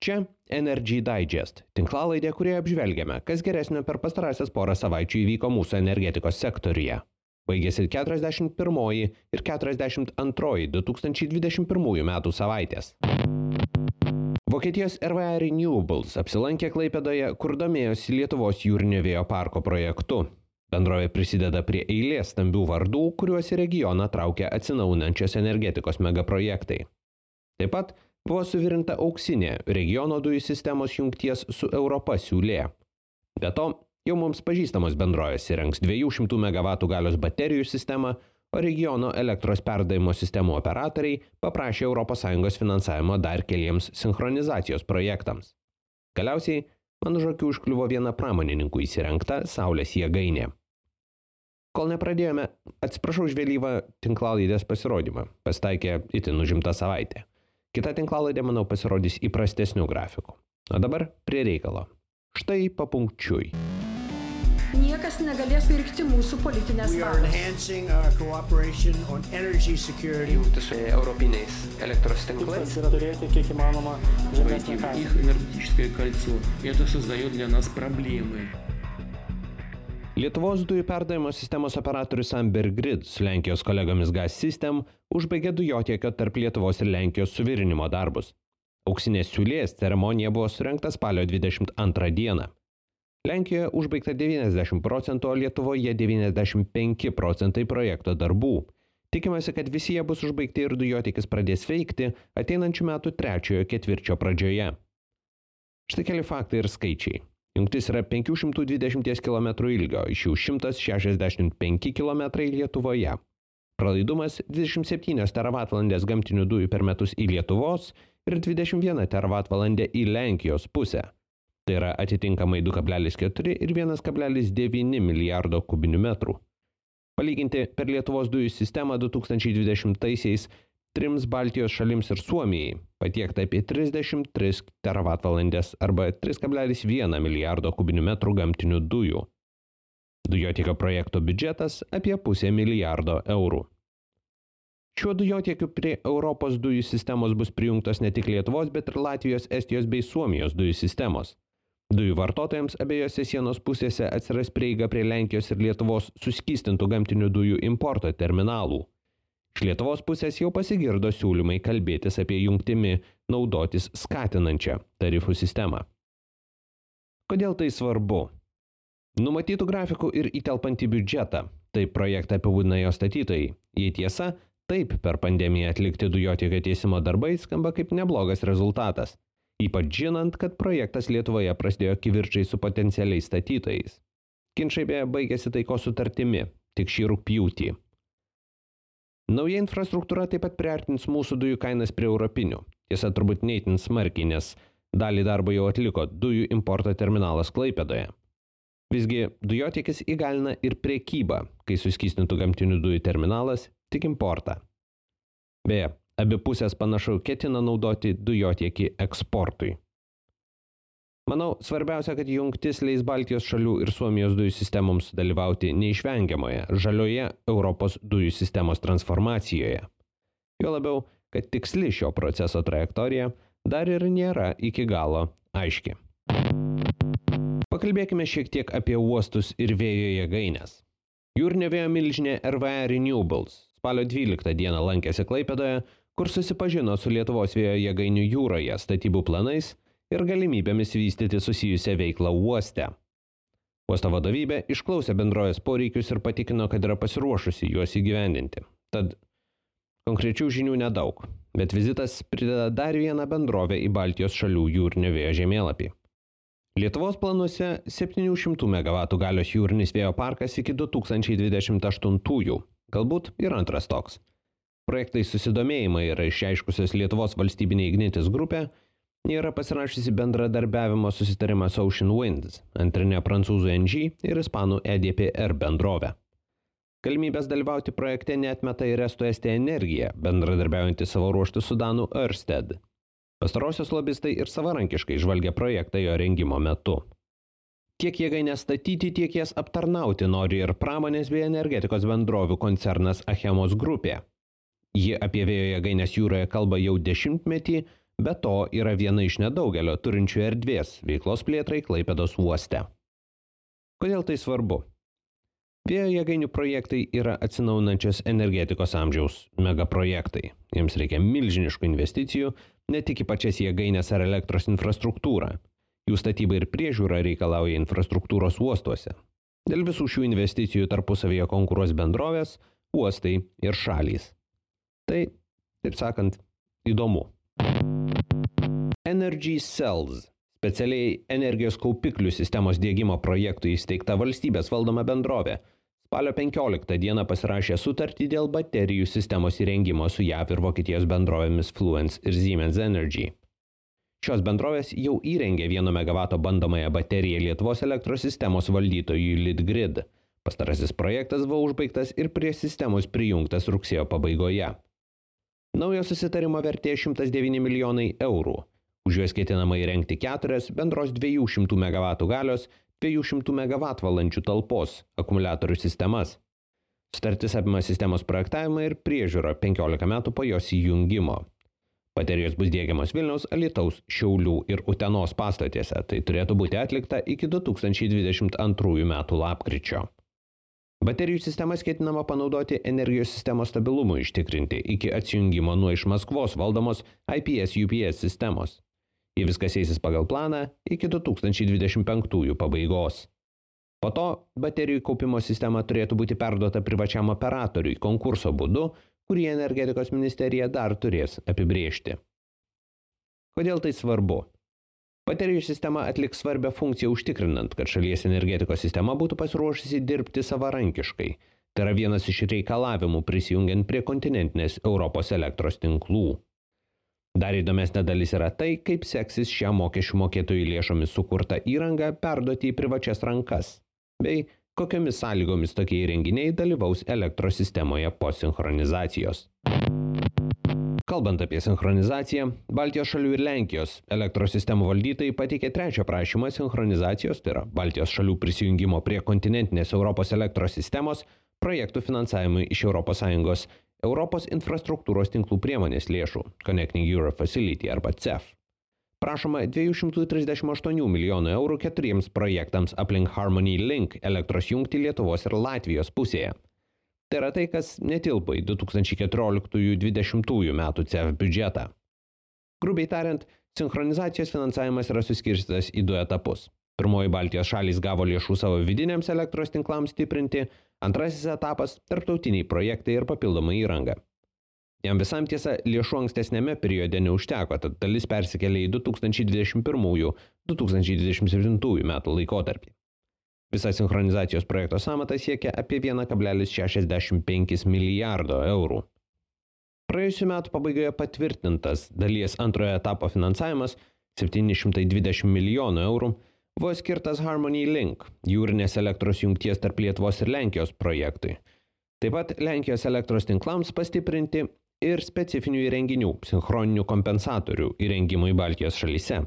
Čia Energy Digest, tinklalaidė, kurioje apžvelgiame, kas geresnio per pastarąsias porą savaičių įvyko mūsų energetikos sektoriuje. Baigėsi 41 ir 42 2021 metų savaitės. Vokietijos RWE Renewables apsilankė Klaipėdoje, kur domėjosi Lietuvos jūrinio vėjo parko projektu. Bendrovė prisideda prie eilės stambių vardų, kuriuos į regioną traukia atsinaujinančios energetikos megaprojektai. Taip pat buvo suvirinta auksinė regiono dujų sistemos jungties su Europa siūlė. Be to, jau mums pažįstamos bendrovės įrengs 200 MW galios baterijų sistemą, o regiono elektros perdavimo sistemų operatoriai paprašė ES finansavimo dar keliems sinchronizacijos projektams. Galiausiai, man už akių užkliuvo viena pramonininkų įsirengta saulės jėgainė. Kol nepradėjome, atsiprašau už vėlyvą tinklalaidės pasirodymą, pasitaikė itin užimta savaitė. Kita tinklalaidė, manau, pasirodys įprastesnių grafikų. O dabar prie reikalo. Štai papunkčiui. Niekas negalės virkti mūsų politinės valios. Jungti su europiniais elektros tinklais. Yra turėti kiek įmanoma žemesnį kainą. Их энергетическое кольцо. Это создает для нас проблемы. Lietuvos dujų perdavimo sistemos operatorius Amber Grid su Lenkijos kolegomis Gas System užbaigė dujotiekio tarp Lietuvos ir Lenkijos suvirinimo darbus. Auksinės siūlės ceremonija buvo surengta spalio 22 dieną. Lenkijoje užbaigta 90%, o Lietuvoje 95% projekto darbų. Tikimasi, kad visi jie bus užbaigti ir dujotiekis pradės veikti ateinančių metų 3 ketvirčio pradžioje. Štai keli faktai ir skaičiai. Jungtis yra 520 km ilgio, iš jų 165 km Lietuvoje. Pralaidumas 27 teravatvalandės gamtinių dujų per metus į Lietuvos ir 21 teravatvalandė į Lenkijos pusę. Tai yra atitinkamai 2,4 ir 1,9 milijardo kubinių metrų. Palyginti per Lietuvos dujų sistemą 2020-aisiais 3 Baltijos šalims ir Suomijai patiekta apie 33 teravatvalandės arba 3,1 milijardo kubinių metrų gamtinių dujų. Dujotiekio projekto biudžetas apie 0,5 milijardo eurų. Šiuo dujotiekiu prie Europos dujų sistemos bus prijungtos ne tik Lietuvos, bet ir Latvijos, Estijos bei Suomijos dujų sistemos. Dujų vartotojams abiejose sienos pusėse atsiras prieiga prie Lenkijos ir Lietuvos suskystintų gamtinių dujų importo terminalų. Iš Lietuvos pusės jau pasigirdo siūlymai kalbėtis apie jungtimi naudotis skatinančią tarifų sistemą. Kodėl tai svarbu? Numatytų grafikų ir įtelpantį biudžetą, taip projektą apibūdina jo statytojai. Jei tiesa, taip per pandemiją atlikti dujotiekio tiesimo darbai skamba kaip neblogas rezultatas, ypač žinant, kad projektas Lietuvoje prasidėjo kivirčai su potencialiais statytojais. Ginčai beje baigėsi taikos sutartimi, tik šį rugpjūtį. Nauja infrastruktūra taip pat priartins mūsų dujų kainas prie europinių. Tiesa, turbūt ne itin smarkiai, nes dalį darbo jau atliko dujų importo terminalas Klaipėdoje. Visgi dujotiekis įgalina ir prekybą, kai suskystintų gamtinių dujų terminalas tik importą. Beje, abi pusės panašu ketina naudoti dujotiekį eksportui. Manau, svarbiausia, kad jungtis leis Baltijos šalių ir Suomijos dujų sistemoms dalyvauti neišvengiamoje žalioje Europos dujų sistemos transformacijoje. Jo labiau, kad tiksli šio proceso trajektorija dar ir nėra iki galo aiški. Pakalbėkime šiek tiek apie uostus ir vėjo jėgaines. Jūrinio vėjo milžinė RWE Renewables spalio 12 dieną lankėsi Klaipėdoje, kur susipažino su Lietuvos vėjo jėgainių jūroje statybų planais ir galimybėmis vystyti susijusią veiklą uoste. Uosto vadovybė išklausė bendrovės poreikius ir patikino, kad yra pasiruošusi juos įgyvendinti. Tad konkrečių žinių nedaug, bet vizitas prideda dar vieną bendrovę į Baltijos šalių jūrinio vėjo žemėlapį. Lietuvos planuose 700 MW galios jūrinis vėjo parkas iki 2028-ųjų, galbūt ir antras toks. Projektai susidomėjimai yra išreiškusios Lietuvos valstybinė Ignitis grupė, yra pasirašysi bendradarbiavimo susitarimą su Ocean Winds, antrinė prancūzų NG ir ispanų EDPR bendrovė. Galimybės dalyvauti projekte neatmeta ir Estų Estija Energija, bendradarbiaujantį savo ruoštų su danų Ørsted. Pastarosios lobistai ir savarankiškai žvalgia projektą jo rengimo metu. Tiek jėgaines statyti, tiek jas aptarnauti nori ir pramonės bei energetikos bendrovių koncernas Achemos grupė. Ji apie vėjo jėgaines jūroje kalba jau 10 metį, Be to yra viena iš nedaugelio turinčių erdvės veiklos plėtrai Klaipėdos uoste. Kodėl tai svarbu? Vėjo jėgainių projektai yra atsinaujinančios energetikos amžiaus megaprojektai. Jiems reikia milžiniškų investicijų, ne tik į pačias jėgainės ar elektros infrastruktūrą. Jų statyba ir priežiūra reikalauja infrastruktūros uostuose. Dėl visų šių investicijų tarpusavyje konkuruos bendrovės, uostai ir šalys. Tai, taip sakant, įdomu. Energy Cells – specialiai energijos kaupiklių sistemos diegimo projektų įsteigta valstybės valdoma bendrovė. Spalio 15 dieną pasirašė sutartį dėl baterijų sistemos įrengimo su JAV ir Vokietijos bendrovėmis Fluence ir Siemens Energy. Šios bendrovės jau įrengė 1 MW bandomąją bateriją Lietuvos elektros sistemos valdytojui Litgrid. Pastarasis projektas buvo užbaigtas ir prie sistemos prijungtas rugsėjo pabaigoje. Naujo susitarimo vertė 109 milijonai eurų. Už juos ketinama įrengti 4 bendros 200 MW galios 200 MWh talpos akumuliatorių sistemas. Sutartis apima sistemos projektavimą ir priežiūrą 15 metų po jos įjungimo. Baterijos bus diegiamos Vilniaus, Alytaus, Šiaulių ir Utenos pastatėse. Tai turėtų būti atlikta iki 2022 metų lapkričio. Baterijų sistemas ketinama panaudoti energijos sistemos stabilumui ištikrinti iki atsijungimo nuo iš Maskvos valdomos IPS-UPS sistemos. Jei viskas eisis pagal planą iki 2025 pabaigos. Po to baterijų kaupimo sistema turėtų būti perduota privačiam operatoriui konkurso būdu, kurį energetikos ministerija dar turės apibrėžti. Kodėl tai svarbu? Baterijų sistema atliks svarbią funkciją užtikrinant, kad šalies energetikos sistema būtų pasiruošusi dirbti savarankiškai. Tai yra vienas iš reikalavimų prisijungiant prie kontinentinės Europos elektros tinklų. Dar įdomesnė dalis yra tai, kaip seksis šią mokesčių mokėtojų lėšomis sukurtą įrangą perduoti į privačias rankas, bei kokiomis sąlygomis tokie įrenginiai dalyvaus elektros sistemoje po sinchronizacijos. Kalbant apie sinchronizaciją, Baltijos šalių ir Lenkijos elektros sistemų valdytojai pateikė trečią prašymą sinchronizacijos, tai yra Baltijos šalių prisijungimo prie kontinentinės Europos elektros sistemos projektų finansavimui iš ES Europos infrastruktūros tinklų priemonės lėšų Connecting Europe Facility arba CEF. Prašoma 238 milijonų eurų 4 projektams aplink Harmony Link elektros jungtį Lietuvos ir Latvijos pusėje. Tai yra tai, kas netilpo į 2014-2020 metų CEF biudžetą. Grubiai tariant, sinchronizacijos finansavimas yra suskirstytas į 2 etapus. Pirmoji Baltijos šalys gavo lėšų savo vidiniams elektros tinklams stiprinti, antrasis etapas – tarptautiniai projektai ir papildoma įranga. Jam visam tiesa lėšų ankstesnėme periode neužteko, tad dalis persikėlė į 2021-2027 metų laikotarpį. Visa sinchronizacijos projekto sąmata siekia apie 1,65 milijardo eurų. Praėjusių metų pabaigoje patvirtintas dalies antrojo etapo finansavimas 720 milijonų eurų buvo skirtas Harmony Link, jūrinės elektros jungties tarp Lietuvos ir Lenkijos projektui. Taip pat Lenkijos elektros tinklams pastiprinti ir specifinių įrenginių, sinchroninių kompensatorių įrengimui Baltijos šalyse.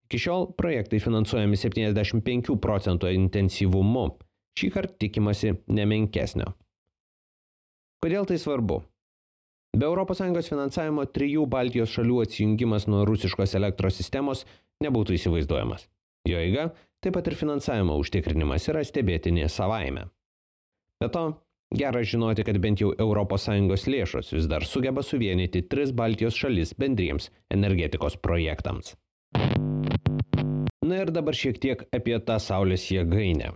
Iki šiol projektai finansuojami 75% intensyvumu, šį kartą tikimasi nemenkesnio. Kodėl tai svarbu? Be ES finansavimo 3 Baltijos šalių atsijungimas nuo rusiškos elektros sistemos nebūtų įsivaizduojamas. Jo eiga, taip pat ir finansavimo užtikrinimas yra stebėtinė savaime. Be to, gera žinoti, kad bent jau ES lėšos vis dar sugeba suvienyti 3 Baltijos šalis bendriems energetikos projektams. Na ir dabar šiek tiek apie tą saulės jėgainę.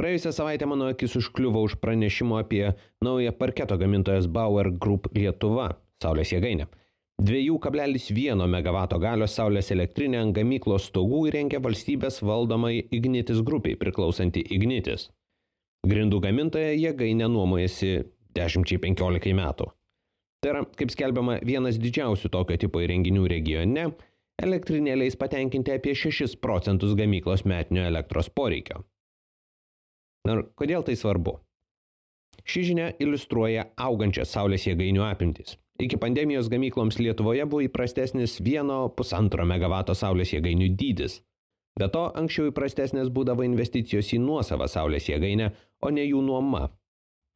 Praėjusią savaitę mano akis užkliuvo už pranešimo apie naują parketo gamintojos Bauer Group Lietuva saulės jėgainę. 2,1 MW galios saulės elektrinę ant gamyklos stogų įrengė valstybės valdomai Ignitis grupiai priklausanti Ignitis. Grindų gamintoja jėgainę nuomojasi 10-15 metų. Tai yra, kaip skelbiama, vienas didžiausių tokio tipo įrenginių regione, elektrinė leis patenkinti apie 6% gamyklos metinio elektros poreikio. Na ir kodėl tai svarbu? Ši žinia iliustruoja augančias saulės jėgainių apimtis. Iki pandemijos gamykloms Lietuvoje buvo įprastesnis 1,5 MW saulės jėgainių dydis. Be to, anksčiau įprastesnės būdavo investicijos į nuosavą saulės jėgainę, o ne jų nuoma.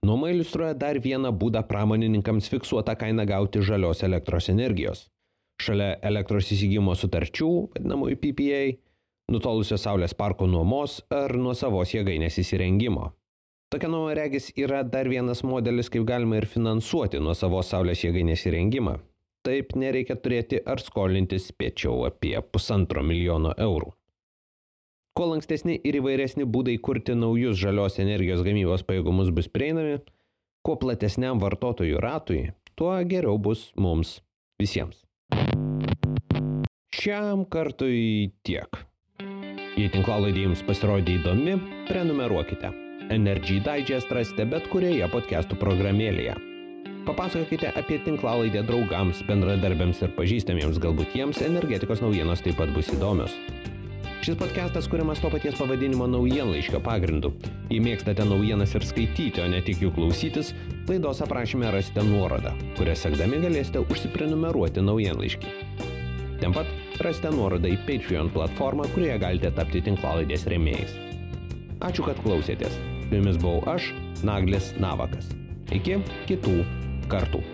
Nuoma iliustruoja dar vieną būdą pramonininkams fiksuotą kainą gauti žalios elektros energijos. šalia elektros įsigijimo sutarčių, vadinamųjų PPA, nutolusio saulės parko nuomos ar nuosavos jėgainės įsirengimo. Tokia nuoma regis yra dar vienas modelis, kaip galima ir finansuoti nuosavos saulės jėgainės įrengimą. Taip nereikia turėti ar skolintis spėčiau apie 1,5 milijono eurų. Kuo lankstesni ir įvairesni būdai kurti naujus žalios energijos gamybos pajėgumus bus prieinami, kuo platesniam vartotojų ratui, tuo geriau bus mums visiems. Šiam kartui tiek. Jei tinklalaidė jums pasirodė įdomi, prenumeruokite. Energy Digest rasite bet kurioje podcastų programėlėje. Papasakokite apie tinklalaidę draugams, bendradarbiams ir pažįstamiems, galbūt jiems energetikos naujienos taip pat bus įdomios. Šis podcastas kuriamas to paties pavadinimo naujienlaiškio pagrindu. Jei mėgstate naujienas ir skaityti, o ne tik jų klausytis, laidos aprašyme rasite nuorodą, kurią sekdami galėsite užsiprenumeruoti naujienlaiškį. Ten pat rasite nuorodą į Patreon platformą, kurioje galite tapti tinklalaidės rėmėjais. Ačiū, kad klausėtės. Su jumis buvau aš, Naglis Navakas. Iki kitų kartų.